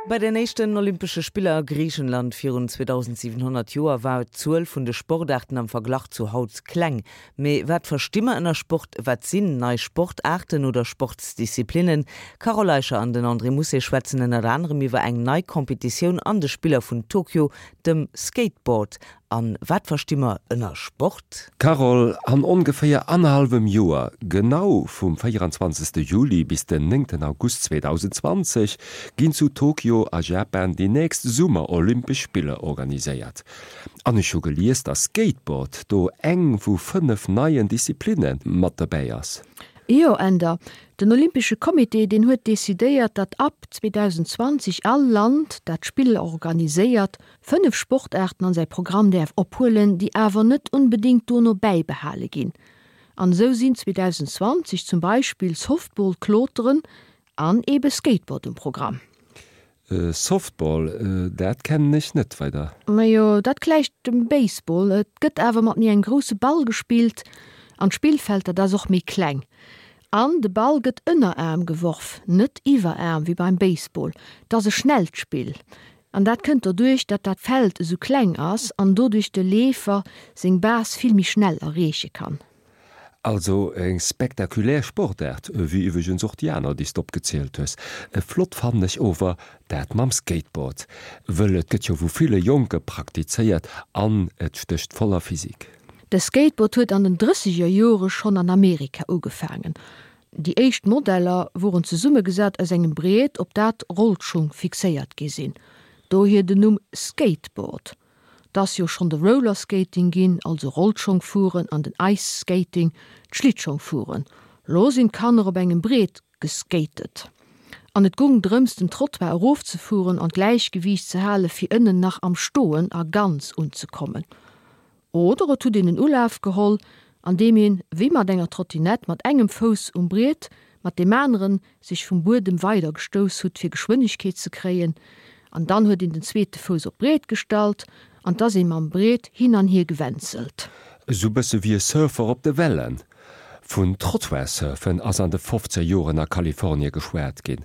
Bei den éischten Olympesche Spiller a Griichenland virun 2700 Joer war d'Zuel vun de Sportaarten am Verglach zu haut kleng. Mee wat versti mer ënner Sport? Wat sinn nei Sportaarten oder Sportsdisziplinnen? D'Carole Eicher an den André Mousset schwätzen ënnert anerem iwwer eng nei Competitioun an de Spiller vun Tokio, dem Skateboard. An wat versti mer ënner Sport? Carole, an ongeféier annerhallwem Joer, genau vum 24 Juli bis den 9 August 2020, ginn zu Tokio a Japan déi nächst Summer-Olympesch Spiller organiséiert. An ech hu gelies, dass Skateboard do eng vu 5 neien Disziplinne mat dobäi ass. Jo, Änder. Den Olympesche Comité, deen huet decidéiert, datt ab 2020 all Land, dat d'Spiller organiséiert, 5 Sportaarten an säi Programm däerf ophuelen, déi awer net onbedéngt dono bäibehale ginn. An esou sinn 2020 zum Beispill Softball, Kloteren an ebe Skateboard um Programm. Softball, dat kennen ech net weider. Majo, dat gläicht dem Baseball, et gëtt awer mat méi engem grousse Ball gespillt an d'Spillfeld, dat ass och méi kleng. An de Ball gëtt ënneraarm geworf, net iwweraarm wéi beim Baseball. Et ass e schnellt Spill. An dat kënnt doduerch, datt dat Feld esou kleng ass an doduerch de Leefer seng Base vill méi schnell erreeche kann. Also eng spektakulär Sportaart, wéi iwweregens och déi aner, déi s de opgezielt hues. Flott fannen ech ower dat mam Skateboard, wëll et gëtt jo vu ville Jonke praktizéiert an et stécht voller Physik. De Skateboard huet an den drësseger Jore schonn an Amerika ugefaangen. Déi éischt Modeller woren zesummegesat aus engem Briet, op dat Rollschung fixéiert gi sinn, dohier den Numm Skateboard. 't ass jo schonn de Rollerskating ginn, also Rollschongfueren, an den Ice Skating, d'Schlittschongfueren. Lo sinn d'Kanner op engem Briet geskatet an et gung drëms den Trottoir erofzefueren an d'Gläichgewiicht ze hale fir ënnen nach am Stoen a ganz unzekommen. Oder et huet een en Ulaf geholl, an deem een, wéi mat enger Trottinett, mat engem Fouss um Briet, mat deem aneren sech vum Buedem weider gestouss hutt, fir Geschwënnegkeet ze kréien, an dann huet een den zweete Fouss op d'Briet gestallt, an 't ass ee mam Briet hin an hier gewänzelt. Esou bësse wéi e Surfer op de Wellen. Vun Trottoir-Surfen ass an de fofzeger Joren a Kalifornie geschwat ginn.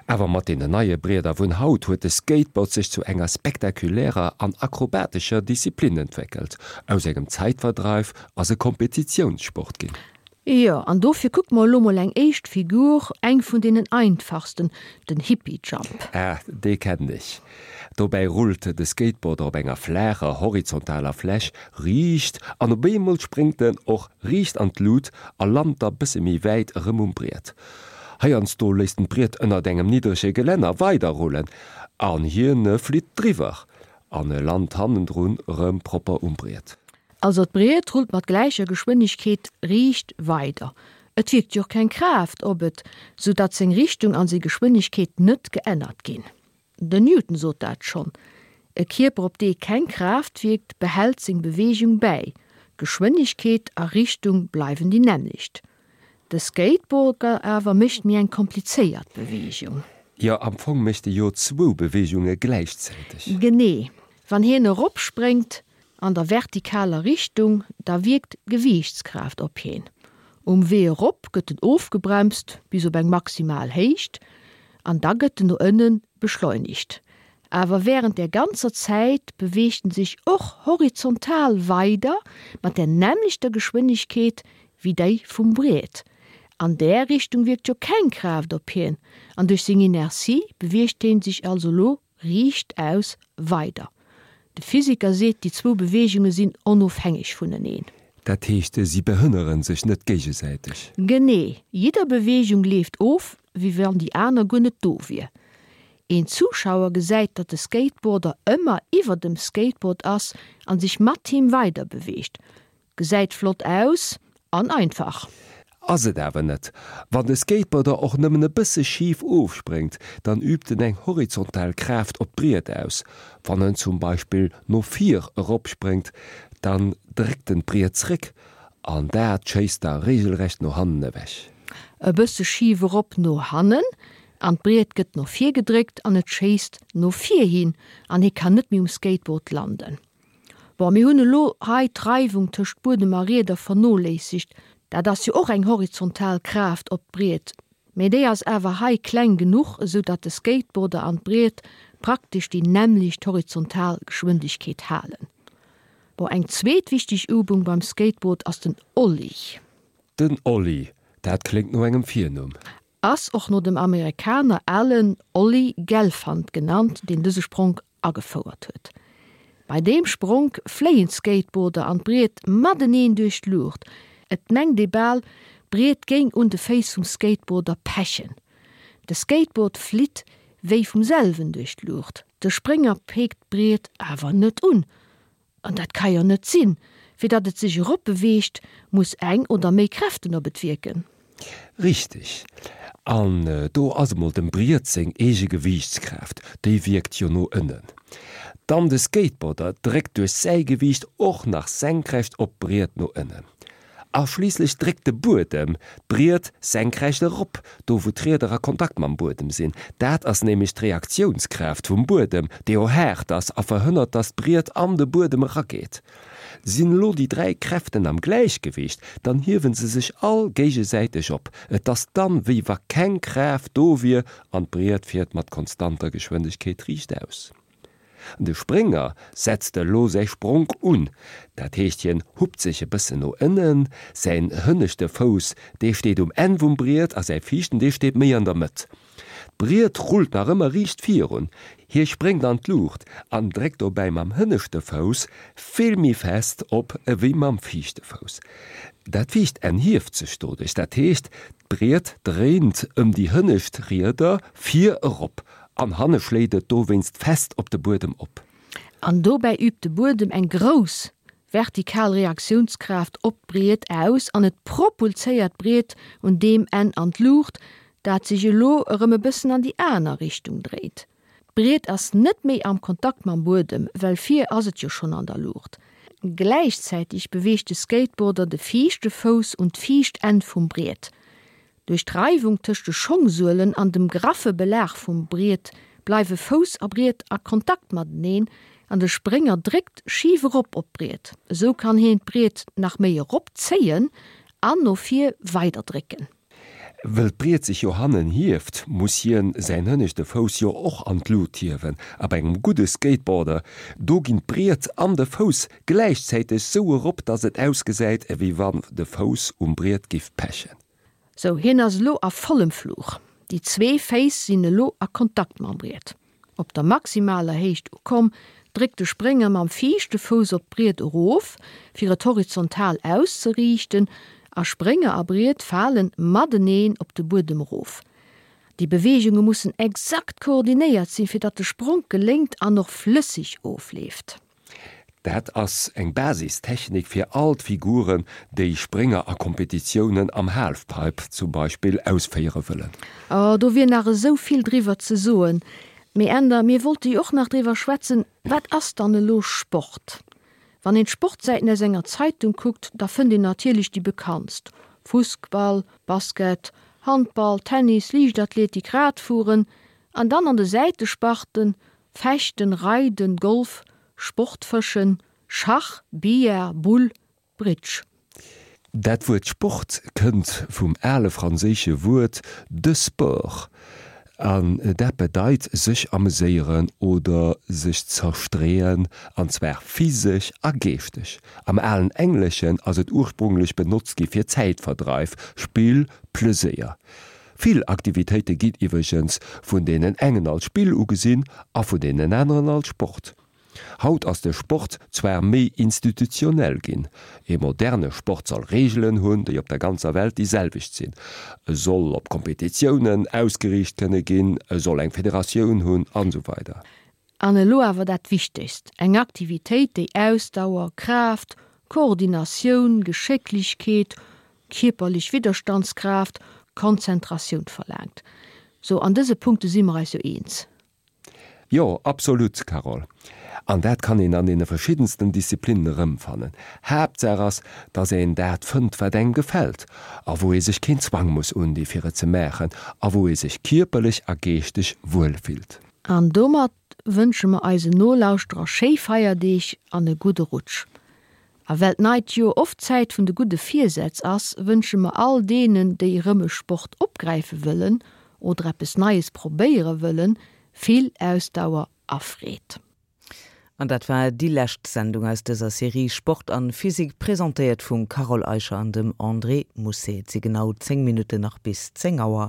Awer mat deenen neie Brieder vun haut huet de Skateboard sech zu enger spektakulärer an akrobatescher Disziplin entwéckelt. Aus engem Zäitverdreif ass e Kompetitiounssport ginn. Jo, an dofir kucke mer elo mol eng éischt Figur, eng vun deenen einfachsten, den Hippie Jump. Ah, dee kennen ech. Dobäi rullt de Skateboarder op enger flaacher, horizontaler Fläch riicht an op eemol spréngt en och riicht an d'Lut a lant da bësse méi wäit erëm um Briet. Heiansdo léisst en d'Briet ënnert engem niddrege Gelänner weiderrullen an hien flitt driwwer an e lant hannendrun erëm propper um Briet. Also d'Briet rullt mat gläicher Geschwënnegkeet riicht weider. Et wierkt jo och keng Kraaft op et, sou datt seng Richtung an seng Geschwënnegkeet net geännert ginn. Den Newton sot dat schonn, E Kierper op dee keng Kraaft wierkt, behält seng Beweegung bäi, Geschwënnegkeet a Richtung bleiwen déi nämmlecht. De Skateboarder awer mécht méi eng komplizéiert Beweegung. Jo, am Fong mécht e jo zwou Beweegunge gläichzäiteg. Genee. Wann hien eropspréngt, an der vertikaler Richtung, da wierkt d'Gewiichtskraaft op hien. Um Wee erop gëtt en ofgebremst bis op eng maximal Héicht an da gëtt en no ënne beschleunigt. Awer wärend där ganzer Zäit beweegt en sech och horizontal weider mat där nämmlechter Geschwënnegkeet wéi déi vum Briet. An där Richtung wierkt jo keng Kraaft op hien an duerch seng Inertie beweegt hien sech also lo Riichtaus weider. De Physiker seet, déi zwou Beweegunge sinn onofhängeg vuneneen. Dat heescht, si behënnere sech net géigesäiteg. Genee. Jidder Beweegung leeft of, wéi wann déi aner guer net do wier. Een Zuschauer gesäit, datt de Skateboarder ëmmer iwwer dem Skateboard ass an sech mat him weider beweegt. Gesäit flott aus an einfach. Ass et awer net. Wann de Skateboarder och nëmmen e bësse schif ofspréngt, dann übt en eng horizontal Kraaft op d'Briet aus. Wann en zum Beispill no vir eropspréngt, dann dréckt en d'Briet zréck an dat schéisst da reegelrecht no hannen ewech. E bësse schif erop no hannen an d'Briet gëtt no vir gedréckt an et schéisst no vir hin an hie kann net méi um Skateboard landen. Bon, mir hunn elo hei d'Reiwung tëscht Buedem a Rieder vernoléissegt. Dat ass jo och eng horizontal Kraaft op d'Briet. Mee déi ass awer hei kleng genuch, esou datt de Skateboarder an d'Briet praktesch déi nämmlecht horizontal Geschwindegkeet halen. Bon, eng zweet wichteg Übung beim Skateboard ass den Ollie. Den Ollie, dat kléngt no engem Virnumm. Ass och no dem Amerikaner Alan Ollie Gelfand genannt, deen dëse Spronk agefouert huet. Bei deem Spronk fléien d'Skateboarder an d'Briet mateneen duerch d'Luucht. Et mengt ee bal, d'Briet géing un de Féiss vum Skateboarder pechen. De Skateboard flitt wéi vum selwen duerch d'Luucht, de Sprénger peekt d'Briet awer net un. An dat ka jo net sinn. Fir datt et sech erop beweegt, muss eng oder méi Kräften op et wierken. Richteg. An do ass emol dem Briet seng eege Gewiichtskraaft, déi wierkt jo no ënnen. Dann de Skateboarder dréckt duerch säi Gewiicht och nach senkrecht op d'Briet no ënnen. A schliisslech dréckt de Buedem d'Briet senkrecht erop, do wou d'Rieder a Kontakt mam Buedem sinn. Dat ass nämlech d'Reaktiounskraaft vum Buedem, déi jo haart ass a verhënnert, dass d'Briet an de Buedem erageet. Sinn elo déi 3 Kräften am Gläichgewicht, dann hiewe se sech all géigesäiteg op. Et ass dann, wéi wa keng Kraaft do wier an d'Briet fiert mat konstanter Geschwindegkeet riichtaus. De Sprénger setzt elo säi Spronk un, dat heescht hien huppt sech e bëssen no ënnen, säin hënneschte Fouss dee steet um Enn vum Briet a säi viischten dee steet méi an der Mëtt. D'Briet rullt nach ëmmer riicht virun, hie spréngt an d'Luucht an dréckt dobäi mam hënneschte Fouss vill méi fest op ewéi mam viischte Fouss. Dat viischt Enn hieft sech doduerch, dat heescht d'Briet dréint ëm déi hënnescht Rieder vir erop An hanne schléit et dowéinst fest op de Buedem op. An dobäi übt de Buedem eng grouss vertikal Reaktiounskraaft op d'Briet aus an et propulséiert d'Briet un deem Enn an d'Luucht, dat sech elo erëm e bëssen an déi aner Richtung dréit. D'Briet ass net méi am Kontakt mam Buedem, well vir ass et jo schonn an der Luucht. Gläichzäiteg beweegt de Skateboarder de viischte Fouss un d'viischt Enn vum Briet. Duerch d'Reiwung tëscht de Schongsuelen an dem graffe Belag vum Briet bleiwe Fouss a Briet a Kontakt mateneen an de Sprénger dréckt schif erop op d'Briet. Esou kann hien d'Briet nach méi erop zéien an no vir weider drécken. Wëll d'Briet sech jo hannen hieft, muss hien säin hënneschte Fouss jo och an d'Lut hiewen. A bei engem gudde Skateboarder, do ginn d'Briet an de Fouss gläichzäiteg sou erop, dass et ausgesäit ewéi wann de Fouss um Briet giff pechen. Sou, hien ass elo a vollem Fluch. Déi zwee Féiss sinn elo a Kontakt mam Briet. Op der maximaler Héicht ukomm, dréckt de Sprénger mam viischte Fouss op d'Briet erof, fir et horizontal auszeriichten, a Sprénger a Briet falen mateneen op de Buedem erof. Déi Beweegunge mussen exakt koordinéiert sinn, fir datt de Spronk geléngt an och flësseg ofleeft. Dat ass eng Basistechnik fir all d'Figuren, déi Sprénger a Kompetitiounen am Halfpipe zum Beispill ausféiere wëllen. Oh, do wier nach esou vill driwwer ze soen. Mee Änder, mir wollte jo och nach driwwer schwätzen, wat ass dann elo Sport? Wann een d'Sportsäiten aus enger Zeitung kuckt, da fënnt een natierlech déi bekanntst, Fussball, Basket, Handball, Tennis, Liichtathletik, Radfueren an dann an de Säitesparten Fechten, Reiden, Golf, Sportfëschen, Schach, Billard, Boule, Bridge. Dat Wuert Sport kënnt vum ale franséische Wuert de sport an dat bedeit sech ameséieren oder sech zerstreeën, an zwar physesch a geeschteg. Am alen Engleschen ass et ursprunglech benotzt gi fir Zäitverdreif, Spill, Pleséier. Vill Aktivitéite ginn iwwregens vun deenen engen als Spill ugesinn a vun deenen aneren als Sport. Haut ass de Sport zwar méi institutionell ginn. E moderne Sport soll Reegelen hunn, déi op der ganzer Welt déi selwecht sinn. E soll op Kompetitiounen ausgeriicht kënne ginn, e soll eng Federatioun hunn, an esou weider. An elo awer dat Wichtegst, eng Aktivitéit, déi Ausdauer, Kraaft, Koordinatioun, Geschécklechkeet, kierperlech Widderstandskraaft, Konzentratioun verlaangt. Sou, an dëse Punkte si mer eis jo eens. Jo, absolut, Carole. An dat kann een an deene verschiddensten Disziplinnen erëmfannen. Haaptsaach ass, dass een dat fënnt, wat engem gefält a wou ee sech keen Zwang muss undi fir et ze maachen a wou ee sech kierperlech a geeschteg wuel fillt. An domat wënsche mer eisen Nolauschterer schéi Feierdeeg an e gudde Rutsch. A well d'neit Joer oft d'Zäit vun de gudde Virsätz ass, wënsche mer all deenen, déi erëm e Sport opgräife wëllen oder eppes Neies probéiere wëllen, vill Ausdauer a Freed. An dat war déi lescht Sendung aus dëser Serie Sport an Physik, presentéiert vum Carole Eicher an dem André Mousset. Et si genau 10 Minutten nach bis 10 Auer.